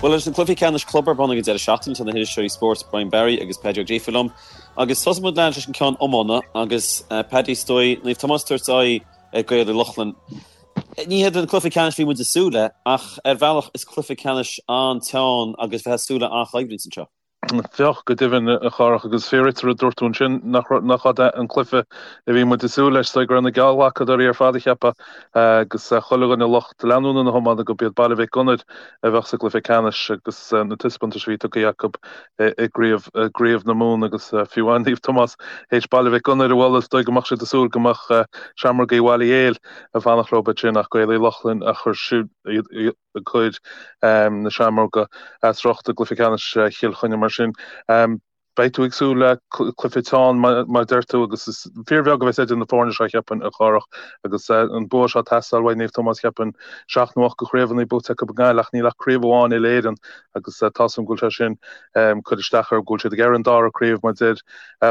Bhuel, leis na cluichí ceannais club ar bun ag an deireadh seachtaine, tá na hiriseoirí spóirt Brian Barry agus Paddy Ó Gríofa liom. Agus tosóidh muid leis an ceann iomána agus Paddy, is dóigh, Naomh Tomás ag tabhairt aghaidh ar Gaeil Uí Lochlainn. Ní hiad an cluiche ceannais a bhí muid ag súil le, ach ar bhealach is cluiche ceannais an-teann agus bheith ag súil le an-choimhlint anseo. Féach, go deimhin, a Chárthach, agus fíor duit an rud a dúirt tú ansin, nach nach é an cluiche a bhí muid ag súil leis, is dóigh go raibh na geallghlacadóirí ar fad ag ceapadh, agus chuile dhuine lucht leanúna na hiomána, gurb iad Baile Mhic Gonair a bheadh sa gcluiche ceannais agus na taispeántais a bhí tugtha acu i gCraobh na Mumhan agus fiú amháin Naomh Tomás théis Baile Mhic Gonair a bhualadh, is dóigh go mbeadh siad ag súil go mbeadh Seamrógaí Bhaile Héil ag fanacht leo ansin ach Gaeil Uí Lochlainn a chuir siúd ag cur na Seamróga as riocht i gcluiche ceannais Chill Chainnigh. Mar sin, beidh tú ag súil le cluiche teann, mar a deir tú, agus is fíorbheag a bheas idir na foirne seo, cheapfainn, a Chárthach, agus an bua seo ag teastáil uaidh Naomh Tomás, cheapfainn, seacht nó ocht de chraobhanna buaite acu i nGaillimh ach níl ach craobh amháin uile-Éireann agus tá 's agam go bhfuil sé sin ag cur isteach orthu, go bhfuil siad ag iarraidh an dara craobh, mar deir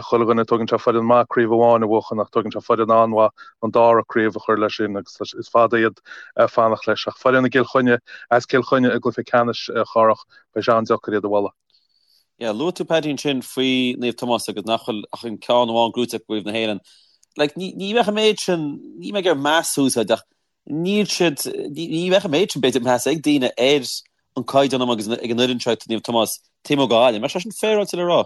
chuile dhuine, tógann sé foireann maith craobh amháin a bhuachan ach tógann sé foireann an-mhaith an dara craobh a chur leis sin agus is fada iad ag fanacht leis. Ach foireann i gCill Chainnigh, as Cill Chainnigh i gcluiche ceannais, a Chárthach, beidh sé an-deacair iad a bhualadh. Yeah, luaigh tú Paddy ansin faoi Naomh Tomás agus nach bhfuil ach an ceann amháin gnóite acu i gCraobh na hÉireann. Like, ní, ní bheadh an méid sin, ní mé ag iarraidh meas a úsáid ach níl siad, ní, ní bheadh an méid sin b'fhéidir meas ag daoine ar an caighdeán agus ag an fhoireann seo Naomh Tomás taobh amuigh de Ghaillimh. An mbeadh sé sin féaráilte le rá?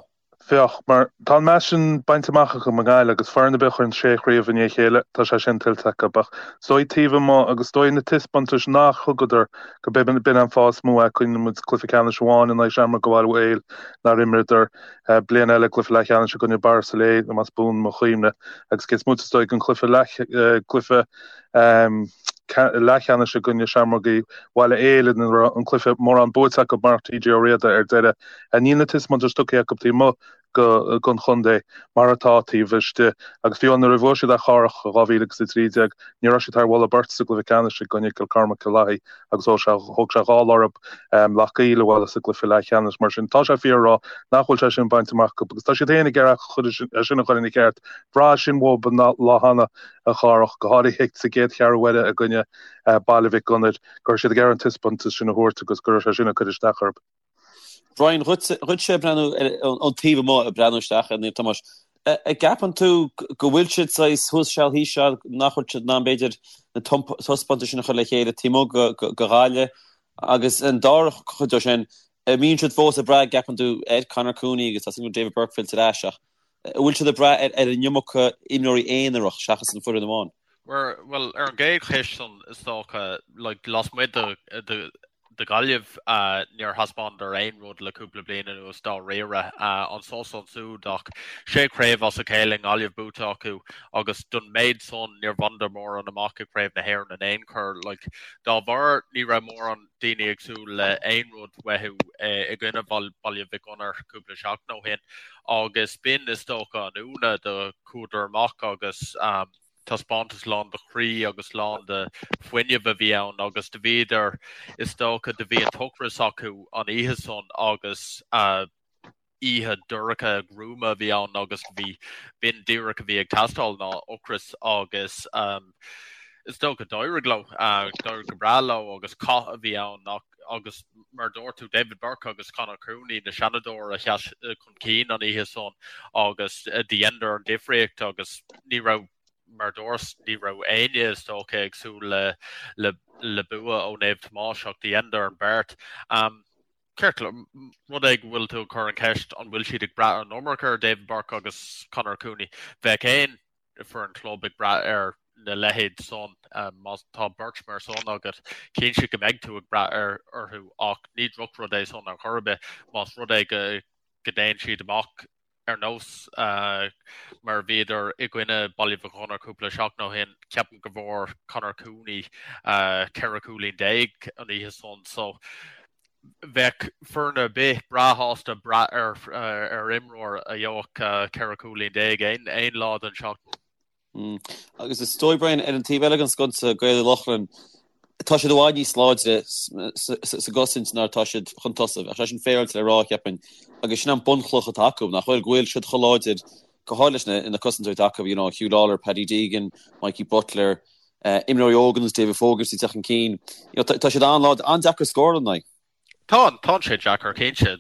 Féach, mar tá an meas sin bainte amach acu i nGaillimh agus foireann ar bith a chuireann sé chraobh i ndiaidh a chéile, tá sé sin tuillte acu. Ach is dóigh taobh amuigh agus is dóigh na taispeántais nach thugadar go b'in an fáth is mó é. Cuimhníonn muid cluiche ceannais amháin in aghaidh Seamróga Bhaile Héil nár imríodar bliain eile cluiche leathcheannais i gcoinne Borris-Ileigh, más buan mo chuimhne, agus cé is moite is dóigh den chluiche leath cluiche leathcheannais i gcoinne Seamrógaí Bhaile Héil ina raibh an cluiche mórán buaite acu mar TJ Ó Riada ar deireadh. Níl na taispeántais tugtha acu taobh amuigh den chontae mar atá taobh istigh agus fiú nuair a bhuaigh siad Ath Chárthach i 2013 ní raibh siad thar mholadh beirte sa gcluiche ceannais i gcoinne Cill Chormaic Cill Lathaí agus thóg sé thóg sé dhá lá orthu Loch gCaol a bhualadh sa gcluiche leathcheannais. Mar sin tá sé fíor a rá nach bhfuil sé sin bainte amach acu agus tá siad féin ag iarraidh é sin a chur ina cheart. Bhraith sin uathu an lá cheana a Chárthach, go háirithe sa gcéad cheathrú uaire i gcoinne Baile Mhic Gonair, go raibh siad ag iarraidh an taispeántas sin a thabhairt agus go raibh sé sin ag cur isteach orthu. Brian, dhuitse ag breathnú ón taobh amuigh, ag breathnú isteach ar Naomh Tomás, an gceapann tú go bhfuil siad saghas thuas seal thíos seal, nach bhfuil siad in ann b'fhéidir na taispeántais sin a chur le chéile taobh amuigh de Ghaillimh agus an dara cuid de sin, an mbíonn siad fós ag brath, an gceapann tú, ar Conor Cooney agus tá súil agam David Burke fillte ar ais ach an bhfuil siad ag brath ar an iomarca imreoirí aonarach seachas an foireann amháin? Bhuel, ar an gcéad cheist san, is dócha, like, lasmuigh de, de, de Ghaillimh, níor thaispeánadar aon rud le cúpla bliain anuas dáiríre. Anso is ansúd ach sé chraobh as a chéile i nGaillimh buaite acu agus don méid san níor bhaineadar mórán amach i gCraobh na hÉireann in aon chor. Like, dá bharr ní raibh mórán daoine ag súil le aon rud uathu i gcoinne Baile Mhic Gonair cúpla seachtain ó shin agus b'in is dócha an ionadh do chuadar amach agus taispeántas lán de chroí agus lán de fuinneamh a bhí ann agus do bhíodar, is dócha, do bhí an t-ocras acu an oíche san agus oíche dorcha gruama a bhí ann agus bhí, b'in díreach a bhí ag teastáil ná ocras agus is dócha d'éirigh leo, d'éirigh go breá leo agus cath a bhí ann agus mar dúirt tú David Burke agus Conor Cooney na Seanadóir a sheas chun cinn an oíche san agus do dheineadar an difríocht agus ní raibh mar dúirt ní raibh éinne is dócha ag súil le le le bua ó Naomh Tomás ach do dheineadar an beart. Um, Ceart, rud é go bhfuil tú ag cur an cheist an bhfuil siad ag brath an iomarca ar David Burke agus Conor Cooney. Bheadh aon foireann club ag brath ar na leithéid san. Má tá beirt mar san agat, cinnte go mbeidh tú ag brath ar orthu ach ní drochrud é san ar chor ar bith más rud é go go dtéann siad amach ar nós mar a bhíodar i gcoinne Baile Mhic Gonair cúpla seachtain ó shin. Ceapaim go bhfuair Conor Cooney 14 cúilín an oíche san so bheadh foireann ar bith breá shásta brath ar ar imreoir a gheobhadh 14 cúilín aon aon lá den seachtain. Agus is dóigh, Brian, ar an taobh eile den sconsa, Gaeil Uí Lochlainn, tá siad i bhfad níos láidre sa gcosaint ná atá siad chun tosaigh. Bheadh sé sin féaráilte le rá, cheapfainn. Agus sin an bunchloch atá acu, nach bhfuil, go bhfuil siad chomh láidir, go háirithe leis na cosantóirí atá acu, you know, Huw Lawlor, Paddy Deegan, Mikey Butler, imreoirí óga ar nós David Fogarty ag teacht chun cinn. You know, tá siad an-láidir, an-deacair scóráil ina n-aghaidh. Tá, tá sé deacair cinnte.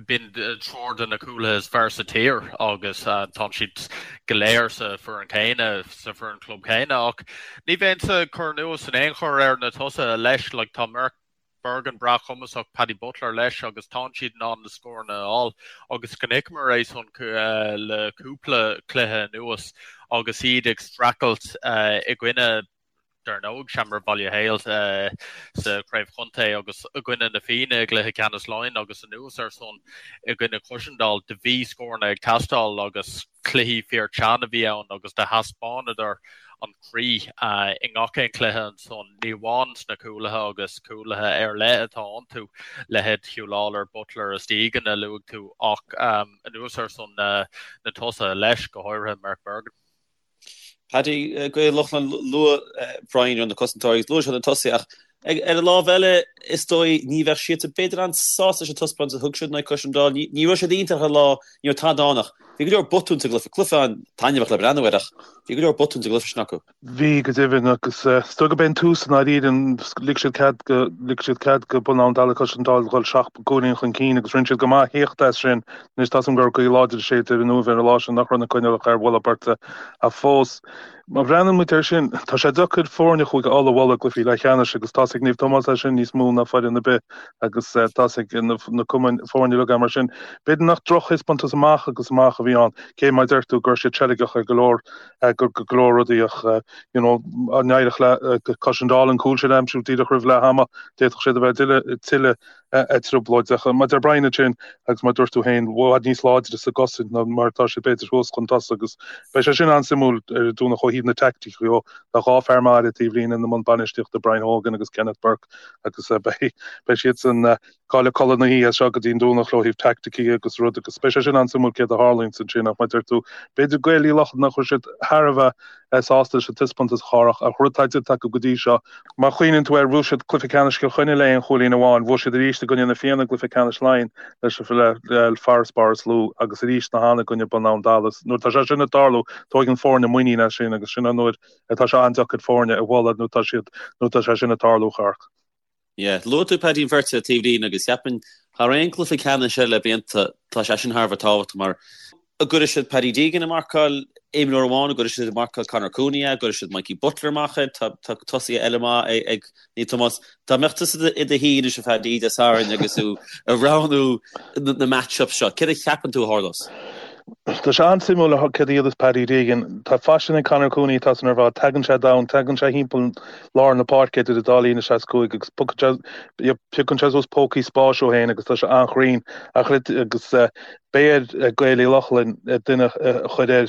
B'in triúr de na cúlaithe is fearr sa tír agus tá siad go léir sa foireann céanna, sa foireann club céanna ach ní bheinnse ag cur anuas in aon chor ar na tosaithe leis. Like, tá Mark Bergin breá cumasach, Paddy Butler leis agus tá siad in ann na scóranna a fháil agus chonaiceamar é san le cúpla cluiche anuas agus iad ag streachailt i gcoinne dar ndóigh, Seamróg Bhaile Héil sa Chraobh Chontae agus i gcoinne na Fianna i gcluiche ceannais Laighean agus anuas ar san i gcoinne Cushendall, do bhí scóranna ag teastáil agus cluichí fíor teann a bhí ann agus do thaispeánadar an croí i ngach aon chluiche ansan, ní amháin sna cúlaithe agus cúlaithe ar leith atá iontu, leithéid Huw Lawlor, Butler is Deegan a luaigh tú ach anuas ar san na tosaithe leis, go háirithe Mark Bergin. Paddy, Gaeil Lochlainn, luaigh Brian ar na cosantóirí agus luaigh sé na tosaithe ach ar an lámh eile is dóigh ní bheadh siadsan b'fhéidir an-sásta leis an taispeántas a thug siad in aghaidh Cushendall. Ní raibh siad iontach ar an lá, ní raibh tada ann ach bhí go leor botún sa gcluiche. Cluiche an-taitneamhach le breathnú air ach bhí go leor botún sa gcluiche sin acu. Bhí, go deimhin, agus is dóigh gurb é an tús i ndáiríre, lig siad cead go, lig siad cead go Bun Abhann Dalla Cushendall dhul seacht gcúilín chun cinn agus rinne siad go maith theacht as sin. Anois tá 's agam go raibh gaoth láidir ag séideadh ar an Uaimh ar an lá sin nach raibh na coinníollacha ar mholadh beirte ach fós. Má bhreathnaíonn muid air sin, tá sé deacair foirne Chúige Uladh a bhualadh i gcluichí leathcheannais agus tá's ag Naomh Tomás é sin níos mó ná foireann ar bith agus tá's ag na cumainn foirne uilig é mar sin. B'fhéidir nach drochthaispeántas amach agus amach a bhí ann, cé mar a deir tú go raibh siad seilgeach ar go leor go go leor rudaí ach you know dá n-éireodh le Cushendall an cúl sin a aimsiú díreach roimh leath ama, d'fhéadfadh siad a bheith tuilleadh trioblóideach. Mar a deir Brian ansin agus mar a dúirt tú féin, i bhfad níos láidre sa gcosaint ná mar atá siad b'fhéidir thuas chun tosaigh agus beidh sé sin an-suimiúil ar an Domhnach ó thaobh na teaicticí dhó. Tá dhá fear maith ar an taobhlíne ina mbun bainistíochta, Brian Hogan agus Kenneth Burke agus beidh beidh siadsan ag cailleadh codladh na hoíche as seo go dtí an Domhnach ó thaobh teaicticí agus rud agus beidh sé sin an-suimiúil céard a tharlaíonns ansin ach mar a deir tú b'fhéidir Gaeil Uí Lochlainn nach raibh siad thar a bheith sásta leis an taispeántas a Chárthach ach rud atá déanta acu go dtí seo. Má chuimhníonn tú air, bhuaigh siad cluiche ceannais Chill Chainnigh le aon chúilín amháin, bhuaigh siad arís i gcoinne na Fianna i gcluiche ceannais Laighean leis le farasbarr is lú agus arís cheana i gcoinne Bun Abhann Dalla. Nuair atá sé sin ag tarlú, tóigeann foirne muinín as sin agus sin an uair atá sé an-deacair foirne a bhualadh nuair atá siad nuair atá sé sin ag tarlú, a Chárthach. Yeah, luaigh tú Paddy an bheirt ar an taobhlíne agus cheapfainn thar aon cluiche ceannais eile le blianta tá sé sin thar a bheith tábhachtach mar an gcuirfidh siad Paddy Deegan ag marcáil imreoir amháin, an gcuirfidh siad ag marcáil Conor Cooney é, an gcuirfidh siad Mikey Butler amach air, tá tá tosaithe eile maith ag Naomh Tomás. Dá mbeadh tusa i do shuí anois a Phaddy Dé Sathairn agus tú ag roghnú na match-ups seo, céard a cheapann tú a tharlós? Tá sé an-suimiúil céard a dhéanfas Paddy Deegan. Tá faisean ag Conor Cooney atá san ar fad. Tagann sé domhain, tagann sé thimpeall lár na páirce idir an dá líne 65 agus piocann sé suas pócaí spáis dó féin agus tá sé an-chruinn ach agus beidh ar Gaeil Uí Lochlainn duine a chur air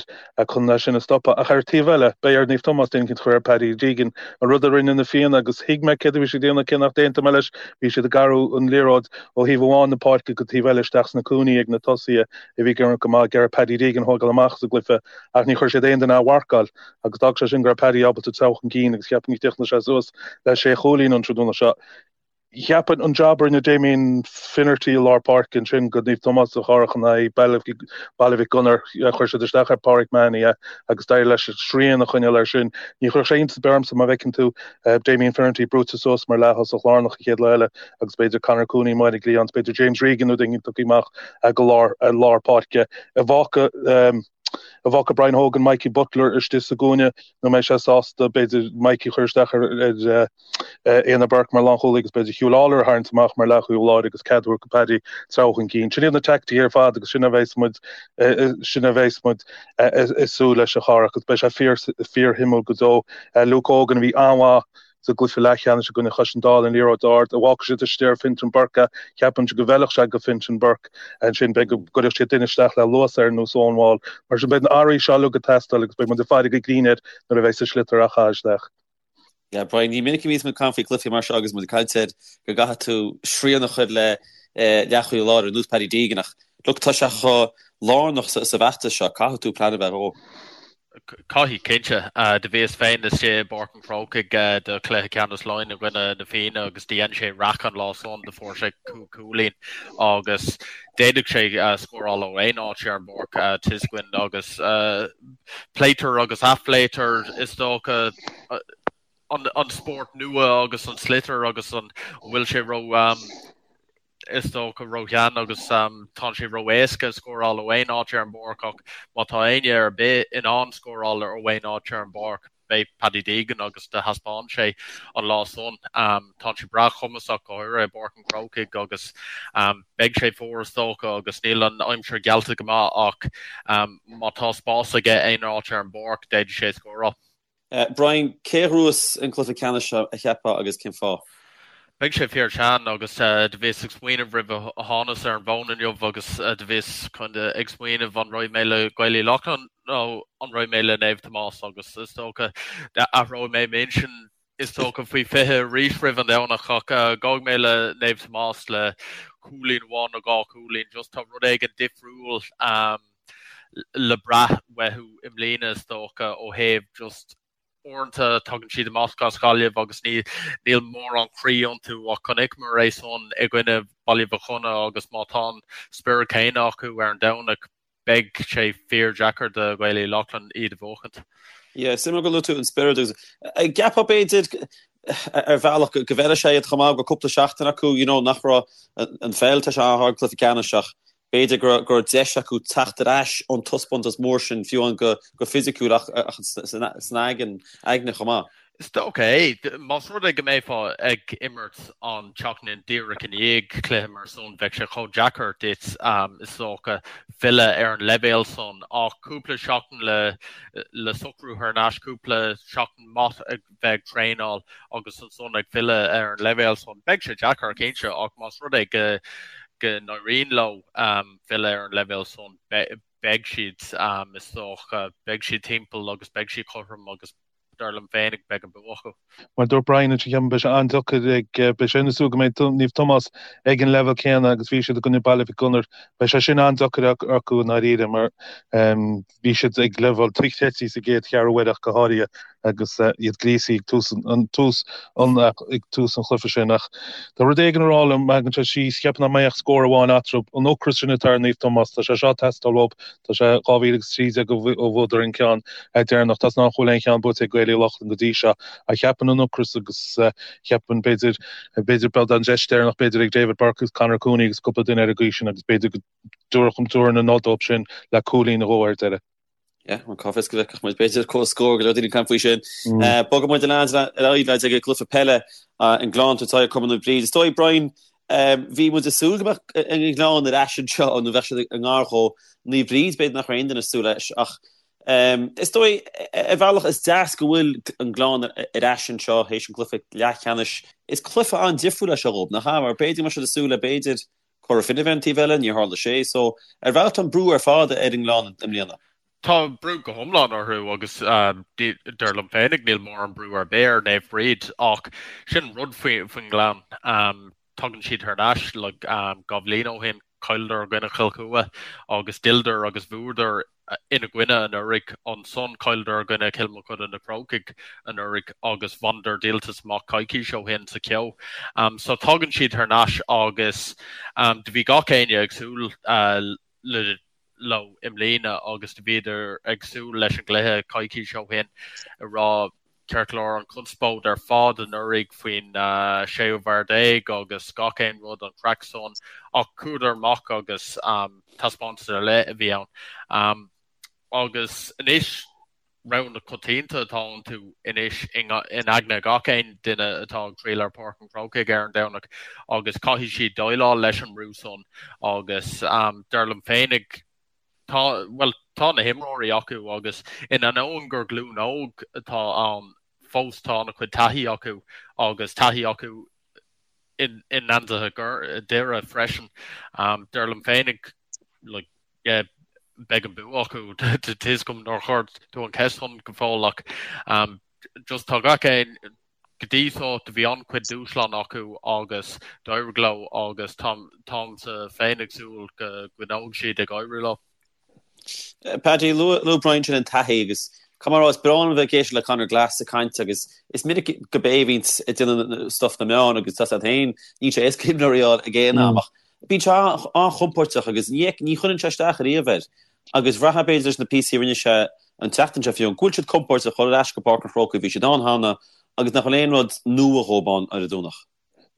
chun é sin a stopadh. Ach ar an taobh eile, beidh ar Naomh Tomás duine eicínt a chur ar Paddy Deegan, an rud a rinne na Fianna agus thuig mé céard a bhí siad ag déanamh cé nach d'aontaigh mé leis, bhí siad ag athrú an liathróid ó thaobh amháin na páirce go taobh eile isteach sna cúinní ag na tosaithe a bhí ag imirt go maith, ag iarraidh Paddy Deegan a thógáil amach as an gcluiche ach ní chuir siad aon duine á mharcáil agus d'fhág sé sin go raibh Paddy ábalta treabhadh chun cinn agus cheapfainn go dtiocfaidh sé suas le sé chúilín an tráthnóna seo. Cheapfainn an jab a rinne Damien Finnerty i lár páirce ansin go Naomh Tomás a Chárthach in aghaidh Baile Mhic Gonair, chuir siad isteach ar Páraic Mahony é agus d'éirigh leis srian a choinneáil air sin. Ní chuirfeadh sé iontas ar bith ormsa má bhfeiceann tú Damien Finnerty brúite suas mar leath-thosach lárnach an chéad lá eile agus b'fhéidir Conor Cooney amuigh ar an gcliathán, b'fhéidir James Regan nó duine tugtha amach go lár lár páirce. An bhfágfaidh an bhfágfaidh Brian Hogan Mikey Butler istigh sa gcúinne nó mbeidh sé sásta b'fhéidir Mikey a chur isteach ar ar Éanna Burke mar lánchúlaí agus b'fhéidir Huw Lawlor a tharraingt amach mar leathchúlaí láir agus cead a thabhairt go Paddy treabhadh chun cinn. Sin iad na teaicticí ar fad agus sin a bheas muid sin a bheas muid ag súil leis a Chárthach agus beidh sé fíor fíorshuimiúil go deo. Luke Hogan a bhí an-mhaith sa gcluiche leathcheannais i gcoinne Chaiseal an liathróid ard, an bhfágfaidh siad istigh ar Fintan Burke é, ceapaimse go bhfeilfeadh sé go Fintan Burke ansin, beidh go gcuirfeadh siad duine isteach le luas air ar nós Owen Wall. Mar sin beidh na hathruithe seo uilig ag teastáil agus beidh muid ag faire go grinn air nuair a bheidh an sliotar á chaitheamh isteach. Yeah, Brian, ní minic a bhíonns muid ag caint faoi chluichí mar seo agus muid ag caint ar go gcaithfidh tú srian a chur le leathchúlaí láir ar nós Paddy Deegan ach look, tá sé chomh lárnach sa bhfeachtas seo, caithfidh tú plean a bheith dhó. Caithfidh, cinnte. Do bhíos féin istigh i bPáirc an Chrócaigh do chluiche ceannais Laighean i gcoinne na Fianna agus do dhein sé raic an lá san, do fuair sé cúig chúilín agus d'fhéadfadh sé scóráil ó aon áit ar an bpáirc, tá 'fhios againn agus pléitear agus athphléitear is dócha an spórt nua agus an sliotar agus an bhfuil sé ró. Is dócha ró-shean agus tá sé ró-éasca scóráil ó aon áit ar an bpáirc ach má tá éinne ar bith in ann scóráil ó aon áit ar an bpáirc, beidh Paddy Deegan agus do thaispeáin sé an lá san. Tá sé breá cumasach go háirithe i bPáirc an Chrócaigh agus beidh sé fuar is dócha agus níl an aimsir geallta go maith ach má tá spás aige aon áit ar an bpáirc d'fhéadfadh sé scóráil. Brian, cé a ghnóthós an cluiche ceannais seo, a cheapfá, agus cén fáth? Beidh sé fíor teann agus do bhíos ag smaoineamh roimh a thánas ar an bhfón inniu agus do bhíos kinda ag smaoineamh an raghaidh mé le Gaeil Uí Lochlainn nó an raghaidh mé le Naomh Tomás agus is dócha athróidh mé m'intinn is dócha faoi 20 arís roimh an Domhnach ach gabhfaidh mé le Naomh Tomás le cúilín amháin nó dhá chúilín just tá rud éigin difriúil le brath uathu i mbliana is dócha ó thaobh just uaireanta tagann siad amach as Gaillimh agus ní níl mórán croí iontu ach chonaiceamar é san i gcoinne Baile Mhic Cionnaith agus má tá an spiorad céanna acu ar an Domhnach beidh sé fíor deacair do Ghaeil Uí Lochlainn iad a bhuachaint. Yeah, suimiúil gur luaigh tú an spiorad agus an gceapfá b'fhéidir ar bhealach go bhfeilfidh sé iad chomh maith go cúpla seachtain acu you know nach raibh an pheil tá sé an-ghar don cluiche ceannais ach B'fhéidir go raibh deis acu teacht ar ais ón taispeántas mór sin, fiú amháin go fisiciúil ach san aigne chomh maith. Is dócha é. Más rud é go mbeifeá ag imirt an tseachtain díreach i ndiaidh cluiche mar san, bheadh sé chomh deacair duit, is dócha, filleadh ar an leibhéal san. Ach cúpla seachtain le socrú thar n-ais, cúpla seachtain maith ag bheith ag traenáil agus ansan ag filleadh ar an leibhéal san. Beidh sé deacair, cinnte, ach más rud é go go n-éiríonn leo filleadh ar an leibhéal san, beidh siad, is dócha, beidh siad timpeall agus beidh siad cothrom agus dar liom féinig beidh an bua acu. Mar a dúirt Brian ansin, ceapaim, beidh sé an-deacair ag, beidh sé ina súil go mbeidh Naomh Tomás ag an leibhéal céanna agus bhí siad i gcoinne Baile Mhic Gonair. Beidh sé sin an-deacair acu i ndáiríre mar bhí siad ag leibhéal dochreidte sa gcéad cheathrú uaire ach go háirithe agus iad gríosaithe ag tús an tús an ag tús an chluiche sin. Ach tá rud éigin ag rá liom, má thagann sé síos, cheapfainn nach mbeidh ach scór amháin eatarthu. An ocras sin atá ar Naomh Tomás, tá sé seo ag teastáil uathu. Tá sé 2013 ó bhuadar an ceann deireanach. Tá nach bhfuil aon cheann buaite ag Gaeil Uí Lochlainn go dtí seo. Ach cheapfainn an ocras agus cheapfainn b'fhéidir b'fhéidir beidh an deis deireanach b'fhéidir ag David Burke agus Conor Cooney agus cúpla duine ar an gcaoi sin agus b'fhéidir go dtabharfar an nod dóibh sin le cúilín nó dhó ar deireadh. Yeah, an cá bhfios go bhfeicfeadh muid b'fhéidir comhscór go leor daoine ag caint faoi sin. Bogfaidh muid ar aghaidh lads ag an gcluiche peile an Gleann ag tabhairt aghaidh ar Cumann Naomh Bríd. Is dóigh Brian, bhí muid ag súil go mbeadh an Gleann ar ais anseo nó bheadh siad i ngar dhó. Naomh Bríd b'fhéidir nach raibh aon duine ag súil leis ach is dóigh ar bhealach is deas go bhfuil an Gleann ar ais anseo théis an cluiche leathcheannais. Is cluiche an-difriúil é seo dhóibh, nach ea? Mar b'fhéidir go mbeadh siad ag súil le b'fhéidir Cora Finne a bheith ar an taobh eile, níor tharla sé. So, ar bhealach tá an brú ar fad ar an nGleann i mbliana. Tá brú go hiomlán orthu agus dar liom féinig níl mórán brú ar bith ar Naomh Bríd ach sin an rud faoin nGleann. Tagann siad thar n-ais like 2 bhliain ó shin, chailleadar i gcoinne Chill Chua agus d'fhilleadar agus bhuadar ina gcoinne anuraidh. Ansan chailleadar i gcoinne Chill Mochuda Na Crócaigh anuraidh agus bhaineadar díoltas amach coicís ó shin sa Cheo. So tagann siad thar n-ais agus do bhí gach éinne ag súil le leo i mbliana agus do bhíodar ag súil leis an gcluiche coicís ó shin ag rá Ceart go leor, an chonspóid ar fad anuraidh faoin séú fear déag agus gach aon rud, an chraic san, ach chuadar amach agus taispeántas ar leith a bhí ann. Agus anois, rogha na coitianta atá iontu anois in aigne gach aon duine atá ag triall ar Pháirc an Chrócaigh ar an Domhnach agus caithfidh siad déileáil leis an mbrú san agus dar liom féinig, Tá, bhuel, tá na himreoirí acu agus in ainneoin gur glúin óg atá ann fós tá an-chuid taithí acu agus taithí acu i ngeansaithe Dhoire freisin. Dar liom féinig, like, yeah, beidh an bua acu. Tá fhios agam nár chuir tú an cheist san go fóill ach just tá gach aon Go dtí so do bhí an-chuid dúshlán acu agus d'éirigh leo agus táimse féin ag súil go gcoinneoidh siad ag éirí leo. Paddy, luaigh Brian sin an taithí agus caithfidh mé a rá is breá liom a bheith ag éisteacht le Conor Glass ag caint agus is minic go b'é a bhíonns ag déanamh stuff na meán agus tá siad féin, níl sé éasca imreoirí a fháil ag aon am ach bíonn sé an-chompóirteach agus ní chuireann sé isteach ariamh air. Agus bhraithfeá b'fhéidir leis na píosaí a rinne sé an tseachtain seo fiú, go bhfuil siad compóirteach dhul ar ais go Páirc an Chrócaigh, bhí siad ann cheana agus nach bhfuil aon rud nua dhóibh ann ar an Domhnach.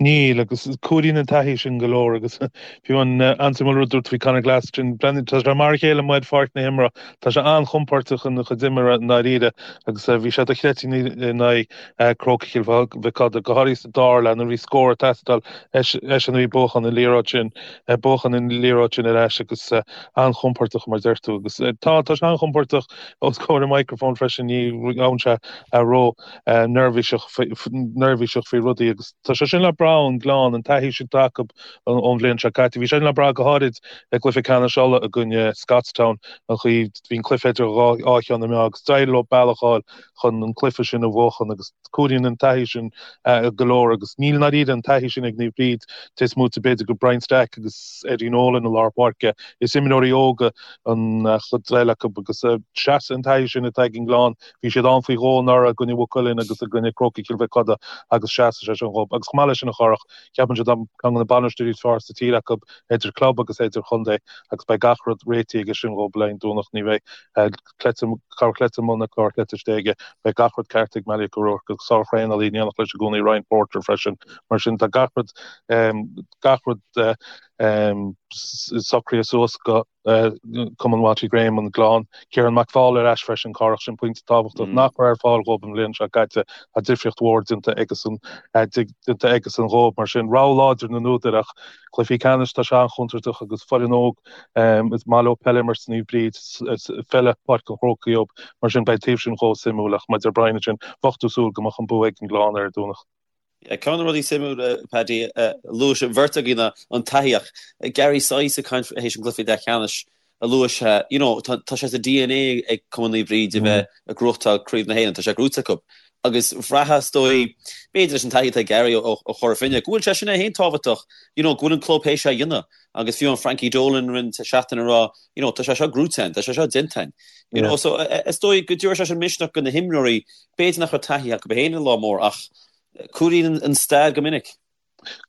Níl, agus cuidíonn an taithí sin go leor agus fiú an an-suimiúil rud a dúirt tú faoi Conor Glass sin, tá sé mar a chéile amuigh ar pháirc na himeartha, tá sé an-chompordach ina chuid imeartha i ndáiríre agus bhí sé dochreidte in aghaidh Crócaigh Chill Mhic Coda, go háirithe sa dara leath nuair a bhí scór ag teastáil, eisean a bhí ag buachan an liathróid sin, buachan an liathróid sin ar ais agus an-chompordach mar a deir tú agus tá, tá sé an-chompordach os comhair an microphone freisin, ní bhíonn sé ró. neirbhíseach neirbhíseach faoi rudaí agus tá sé sin le brath ón nGleann, an taithí sin atá acu ón bhliain seo caite. Bhí sé sin le brath go háirid i gcluiche ceannais Uladh i gcoinne Scotstown, an chaoi bhí an cluiche idir dhá cheann na meá agus d'éirigh leo bealach a fháil chun an cluiche sin a bhuachan agus cuidíonn an taithí sin go leor agus níl i ndáiríre an taithí sin ag Naomh Bríd, cé is móite b'fhéidir de Brian Stack agus Eddie Nolan i lár páirce. Is imreoirí óga an chuid eile acu agus seasann an taithí sin atá ag an nGleann Bhí siad ann faoi dhó anuraidh i gcoinne Mhaigh Cuilinn agus i gcoinne Crócaigh Chill Mhic Coda agus seasfaidh sé sin dhóibh. Agus chomh maith leis sin a Chárthach, ceapaimse tá ceann de na bainisteoirí is fearr sa tír acu idir club agus idirchontae agus beidh gach rud réitithe aige sin dhóibh le haghaidh an Domhnach. Ní bheidh cleite, corr chleite amuigh ná corr chleite istigh aige. Beidh gach rud ceart ag Malachy O'Rourke agus sár-thraenálaí in éineacht leis i gcónaí Ryan Porter freisin. Mar sin tá gach rud, gach rud socraithe suas go. Cumann Watty Graham, an Gleann. Ciarán McFaul ar ais freisin, Cárthach, sin pointe tábhachtach nach raibh ar fáil dhóibh an bhliain seo caite. Tá difríocht mhór déanta aigesan déanta aigesan dhóibh. Mar sin, rogha láidir na n-údar ach cluichí ceannais tá sé an-chontúirteach agus foireann óg is maith leo peil a imirt Naomh Bríd, feile Páirc an Chrócaigh dhóibh. Mar sin, beidh taobh sin chomh suimiúil ach mar a deir Brian ansin, bheadh tú ag súil go mbeadh an bua ag an nGleann ar an Domhnach. Ceann de na rudaí suimiúla, Paddy, a luaigh an bheirt againn ná an taithí ach Gary Sice ag caint théis an gcluiche leathcheannais a luaigh sé, you know, tá sé sa DNA ag Cumann Naomh Bríd a bheith ag gnóthachtáil Craobh na hÉireann, tá sé gnóite acu. Agus bhraithfeá is dóigh, b'fhéidir leis an taithí atá ag Gary ó Chora Finne, go bhfuil sé sin é féin tábhachtach, you know, go bhfuil an club théis é a dhéanamh. Agus fiú an Frankie Dolan roinnt seachtain ag rá, you know, tá sé seo gnóite againn, tá sé seo déanta againn. You know, so is dóigh go dtabharfaidh sé sin misneach do na himreoirí, b'fhéidir nach raibh taithí acu féin ar lá mór ach cuidíonn an stair go minic.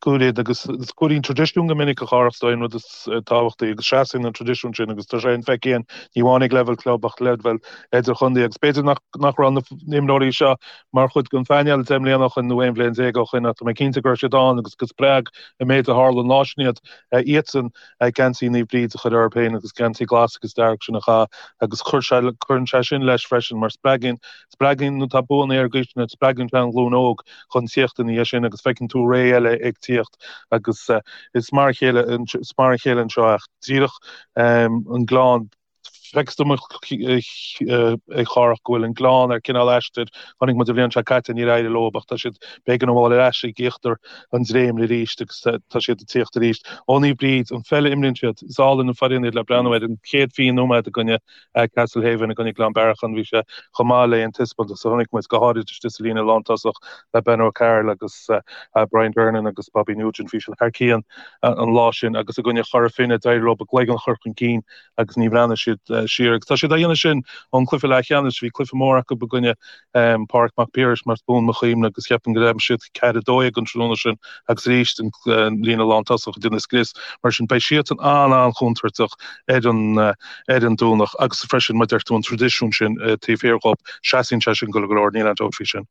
Cuidíonn agus cuidíonn traidisiún go minic a Chárthach is dóigh an rud is tábhachtaí agus seasann an traidisiún sin agus tá sé infheicthe ní amháin ag leibhéal club ach leibhéal idirchontae agus b'fhéidir nach nach raibh na himreoirí seo mar chuid den phainéal 10 mbliana ó shin nó 11 bhliain ó shin ach tá mé cinnte go raibh siad ann agus go spreag an méid a tharla an lá sin iad iadsan geansaí Naomh Bríd a chur orthu féin agus geansaí glas agus dearg sin a chaitheamh agus chuir sé, cuireann sé sin leis freisin mar spreagann, spreagann nuair atá buanna ar an gcaoi sin, spreagann sé an ghlúin óg chun tíocht ina dhiaidh sin agus feiceann tú ré eile ag tíocht agus is mar a chéile, is mar a chéile anseo ach díreach an Gleann. Feictear dom a Chárthach go bhfuil an Gleann ar cineál aistir. Chonaic muid an bhliain seo caite níor éirigh leo ach tá siad b'éigean a ghabháil ar ais ag íochtar an dréimire arís agus tá siad ag tíocht arís. Ó Naomh Bríd, an pheil a imríonn siad, is álainn an foireann iad le breathnú air. An chéad 20 nóiméad i gcoinne Castlehaven, i gcoinne Gleann Bearacháin, bhí sé chomh maith le aon taispeántas a chonaic muid, go háirid istigh sa líne lántosach le Ben O'Carroll agus Brian Durnan agus Bobby Nugent. Bhí siad thar cionn an lá sin agus i gcoinne Chora Finne, d'éirigh leo a gcloigeann a chur chun cinn agus ní bhreathnaigh siad siar. Agus tá siad á dhéanamh sin ón cluiche leathcheannais. Bhí cluiche mór acu i gcoinne Pádraig Mac Piarais mar is buan mo chuimhne agus cheapfainn gur aimsigh siad 4-12 an tráthnóna sin agus arís an líne lántosach ag déanamh scrios. Mar sin beidh siadsan an-an-chontúirteach ar an ar an Domhnach agus freisin mar a deir tú an traidisiún sin taobh thiar dhóibh, seasann sé sin go leor, níl aon dabht faoi sin.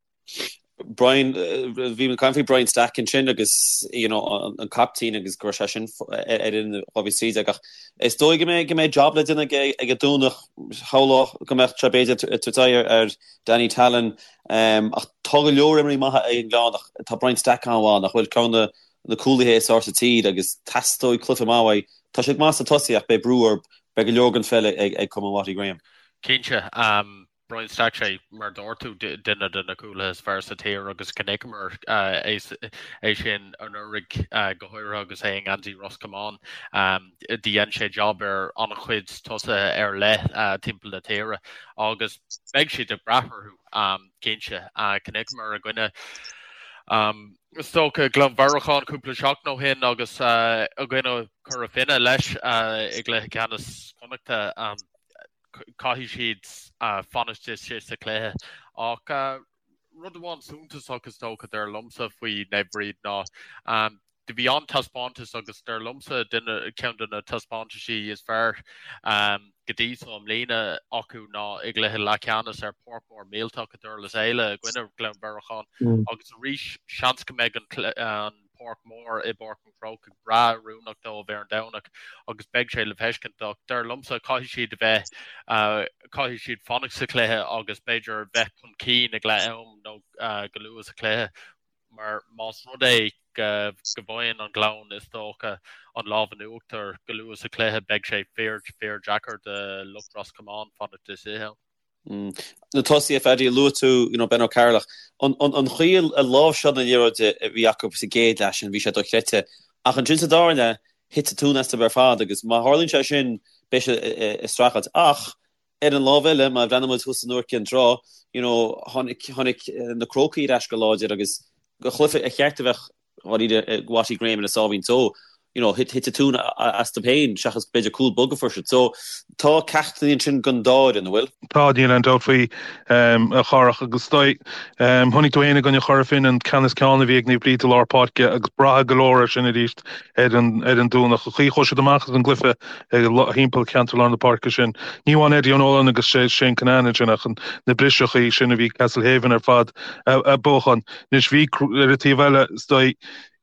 Brian, bhí mé ag caint faoi Brian Stack ansin agus you know, an, an captaen agus go raibh sé sin ar fhoireann 2013 ach is dóigh go mbeidh go mbeidh job le déanamh aige ag an Domhnach shamhlódh go mbeadh sé b'fhéidir ag tabhairt aghaidh ar, ar Danny Tallon um, ach tá go leor imreoirí maithe ag an nGleann ach tá Brian Stack an-mhaith nach bhfuil ceann de na cúlaithe is fearr sa tír agus teastóidh cluiche maith uaidh. Tá sé go maith sna tosaithe ach beidh brú air, beidh go leor den pheil ag, ag Cumann Watty Graham. Cinnte. Um, Brian Stack sé, mar a dúirt tú, duine de na cúlaithe is fearr sa tír agus chonaiceamar é sin anuraidh go háirithe agus é i ngeansaí Ros Comáin. Dhein sé jab ar an-chuid tosaithe ar leith timpeall na tíre agus beidh siad ag brath orthu, cinnte. Chonaiceamar i gcoinne is dócha Gleann Bhearacháin cúpla seachtain ó shin agus i gcoinne Chora Finne leis i gcluiche ceannais Chonnachta. Caithfidh siad fanacht istigh sa chluiche. Ach rud amháin suntasach is dócha dar liomsa faoi Naomh Bríd ná do bhí an-taispeántas agus dar liomsa duine ceann de na taispeántaisí is fearr go dtí so i mbliana acu ná i gcluiche leathcheannais ar pháirc mhór millteach i Durlas Éile i gcoinne Ghleann Bhearacháin agus arís seans go mbeidh an. páirc mhór i bPáirc an Chrócaigh breá oiriúnach dóibh ar an Domhnach agus beidh sé le feiscint ach dar liomsa caithfidh siad a bheith, caithfidh siad fanacht sa chluiche agus b'fhéidir bheith chun cinn ag leath am nó go luath sa chluiche mar más rud é go bhfaigheann an Gleann is dócha an lámh in uachtar go luath sa chluiche beidh sé fíor fíor deacair do lucht Ros Comáin fanacht istigh ann. Na tosaithe, Phaddy, luaigh tú you know Ben O'Carroll ach an an chaoi a láimhseáil na liathróide a bhí acu sa gcéad leath sin bhí sé dochreidte ach ansin sa dara leath thit an tóin astu ar fad agus má tharlaíonn sé sin beidh sé i streachailt ach ar an lámh eile má bhreathnaíonn muid thuas in Iúr Cinn Trá you know tháinig tháinig na Crócaigh ar ais go láidir agus go chluiche ar cheart a bheith dháiríre ag Watty Graham ina sáimhín só, you know, thit an tóin astu féin seachas b'fhéidir cúl bog a fuair siad. So, tá ceachtanna ansin don dá fhoireann, an bhfuil? Tá, níl aon dabht faoi, a Chárthach, agus is dóigh, chonaic tú féin i gcoinne Chora Finne an ceann is ceann a bhí ag Naomh Bríd i lár páirce agus braithfidh go leor air sin arís ar an ar an Domhnach. An chaoi a chuaigh siad amach as an gcluiche thimpeall cheantar lár na páirce sin. Ní amháin Eddie O'Nolan agus Shane Cunnane ansin ach na briseachaí sin a bhí Castlehaven ar fad a buachan. Anois bhí, ar an taobh eile, is dóigh,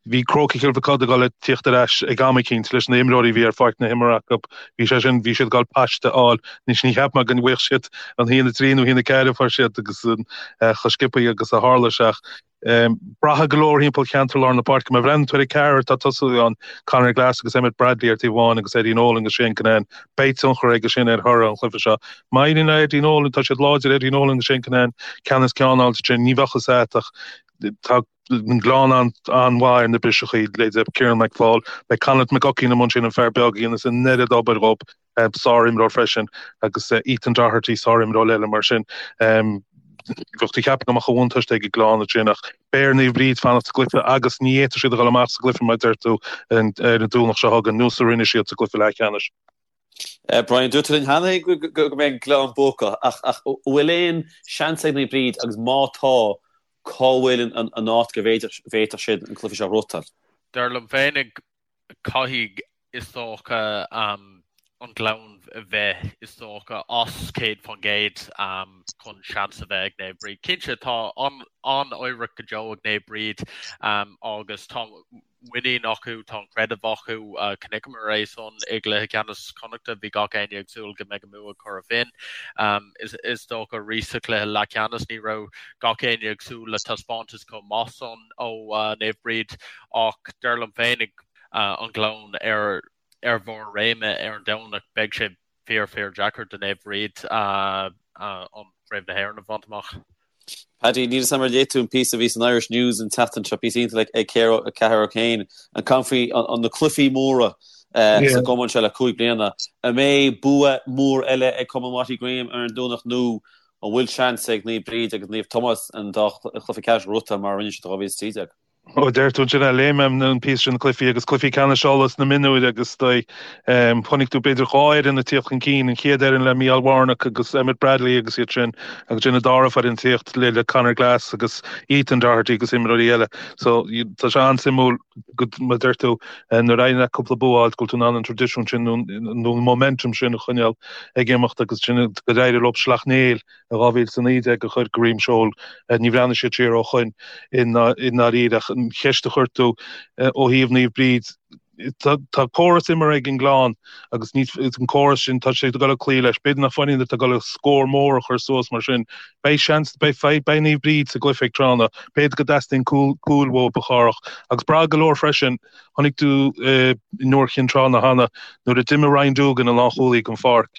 bhí Crócaigh Chill Mochuda ag dul ag tíocht ar ais ag am eicínt leis na imreoirí a bhí ar pháirc na himeartha acu. Bhí sé sin, bhí siad ag dul paiste a fháil. Anois ní cheapaim go bhfaigheadh siad an 1-3 nó 1-4 a fuair siad agus an chomh sciobtha agus a tharla sé ach braithfidh go leor thimpeall cheantar lár na páirce. Má bhreathnaíonn tú ar an ceathrar atá ag tosú ann, Conor Glass agus Emmet Bradley ar taobh amháin agus Eddie Nolan agus Shane Cunnane, beidh tionchar aige sin ar thoradh an chluiche seo. Má éiríonn le Eddie Nolan, tá siad láidir, Eddie Nolan agus Shane Cunnane, ceann is ceann a fháilt ansin, ní bheadh fhios agat ach tá an Gleann an-mhaith ar na briseachaí, leithéidí Kieran McFaul, beidh Conleith McGuckian amuigh ansin, an fear beag a dhéanas an oiread obair dhób, sár-imreoir freisin, agus Ethan Doherty, sár-imreoir eile mar sin. Bheadh tú ag ceapadh go mbeadh an bhuntáiste ag an Gleann ansin ach beidh ar Naomh Bríd fanacht sa gcluiche agus ní fhéadfaidh siad a dhul amach as an gcluiche mar a deir tú ar an Domhnach seo chugainn, nós a rinne siad sa gcluiche leathcheannais. Brian, dúirt tú linn cheana go mbeidh an Gleann buacach, ach an bhfuil aon seans ag Naomh Bríd agus má tá, cá bhfuil an áit go bhféadfadh siad an cluiche seo a ghnóthachtáil? Dar liom féinig, caithfidh, is dócha, an Gleann a bheith, is dócha, as 100% chun seans a bheith ag Naomh Bríd. Cinnte, tá an-oidhreacht go deo ag Naomh Bríd agus tá muinín acu, tá an creideamh acu. Chonaiceamar é san i gcluiche ceannais Chonnachta, bhí gach éinne ag súil go mbeidh an bua ag Cora Finne. Is dócha arís sa chluiche leathcheannais ní raibh gach éinne ag súil le taispeántas chomh maith san ó Naomh Bríd ach dar liom féinig an Gleann ar ar bharr réime ar an Domhnach beidh sé fíor fíor deacair do Naomh Bríd an Craobh na hÉireann a bhaint amach. Paddy, níl 'fhios a'm ar léigh tú an píosa a bhí san Irish News an tseachtain seo, píosa iontach ag Ceathair O'Kane, ag caint faoi na cluichí móra sa gcumann seo le 5 bliana. An mbeidh bua mór eile ag Cumann Watty Graham ar an Domhnach nó an bhfuil seans ag Naomh Bríd agus Naomh Tomás an dá chluiche ceannais a ghnóthachtáil mar a rinne siad i 2013? Ó, deir tú ansin, léigh mé an píosa sin, cluichí agus cluichí ceannais Uladh sna mionúir agus is dóigh, chonaic tú b'fhéidir dhá fhoireann ag tíocht chun cinn, an chéad fhoireann le Mícheál Warnock agus Emmet Bradley agus iad sin agus ansin an dara foireann ag tíocht le le Conor Glass agus Ethan Doherty agus imreoirí eile. So tá sé an-suimiúil go mar deir tú nuair a éiríonn leat cúpla bua a fháilt go bhfuil tú in ann an traidisiún sin nó an momentum sin a choinneáil ag imeacht agus sin gur éirigh leo Sleacht Néill i 2019 a chur go droim seoil. Ní bhreathnaigh siad siar ó shoin i ndáiríre ach an cheist a chuir tú ó thaobh Naomh Bríd, tá córas imeartha ag an nGleann agus ní an córas sin, tá sé ag dul ag cloí leis. B'fhéidir nach foireann atá ag dul scór mór a chur suas mar sin. Beidh seans, beidh, beidh Naomh Bríd sa gcluiche ag tráthnóna. B'fhéidir go dteastaíonn cúl, cúl uathu a Chárthach agus braithfidh go leor freisin. Chonaic tú i nIúr Chinn Trá na cheana nuair a d'imigh Ryan Doogan, an lánchúlaí, den pháirc,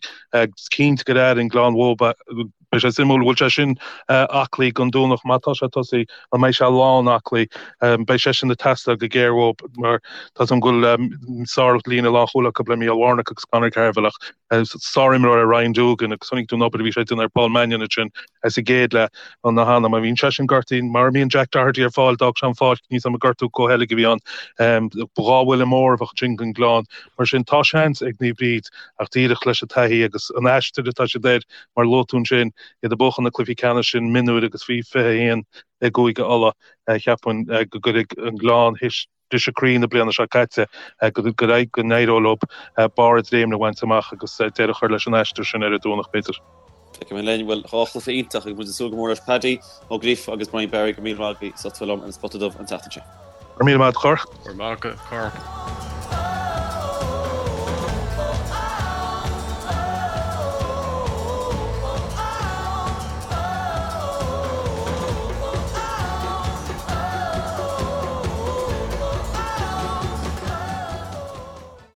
cinnte gur airigh an Gleann uathu. Beidh sé suimiúil, an bhfuil sé sin aclaí don Domhnach, má tá sé ag tosaí, an mbeidh sé lán aclaí? Beidh sé sin ag teastáil go géar uathu mar tá 's agam go bhfuil sár-líne lánchúil acu le Mícheál Warnock agus Conor Carville ach sár-imreoir é Ryan Doogan agus chonaic tú an obair a bhí sé ag déanamh ar Paul Mannion ansin sa gcéad leath. Na cheana. Má bhíonn seisean gortaithe, mura mbíonn Jack Doherty ar fáil, d'fhág sé an pháirc, níl 's agam an gortú comhsheilg a bhí ann. Ba dhá bhuille mór a bheadh ansin don Ghleann. Mar sin, tá seans ag Naomh Bríd ach díreach leis an taithí agus an aistear atá siad air, mar a luaigh tú ansin, iad ag buachan na cluichí ceannais sin mionúir agus faoi 21 i gCúige Uladh, cheapfainn go gcuirfidh an Gleann théis briseadh croí na bliana seo caite go go n-éireoidh leo barr a dréimeanna a bhaint amach agus deireadh a chur leis an aistear sin ar an Domhnach, b'fhéidir. Feicfidh mé linn. Bhuel, dhá chluiche iontach agus muid ag súil go mór leis. Paddy Ó Gríofa agus Brian Barry, go raibh míle maith agaibh as ucht a bheith liom ar an Spota Dubh an tseachtain seo. Go raibh míle maith agat, a Chárthach. Go raibh maith agat, a Chárthach.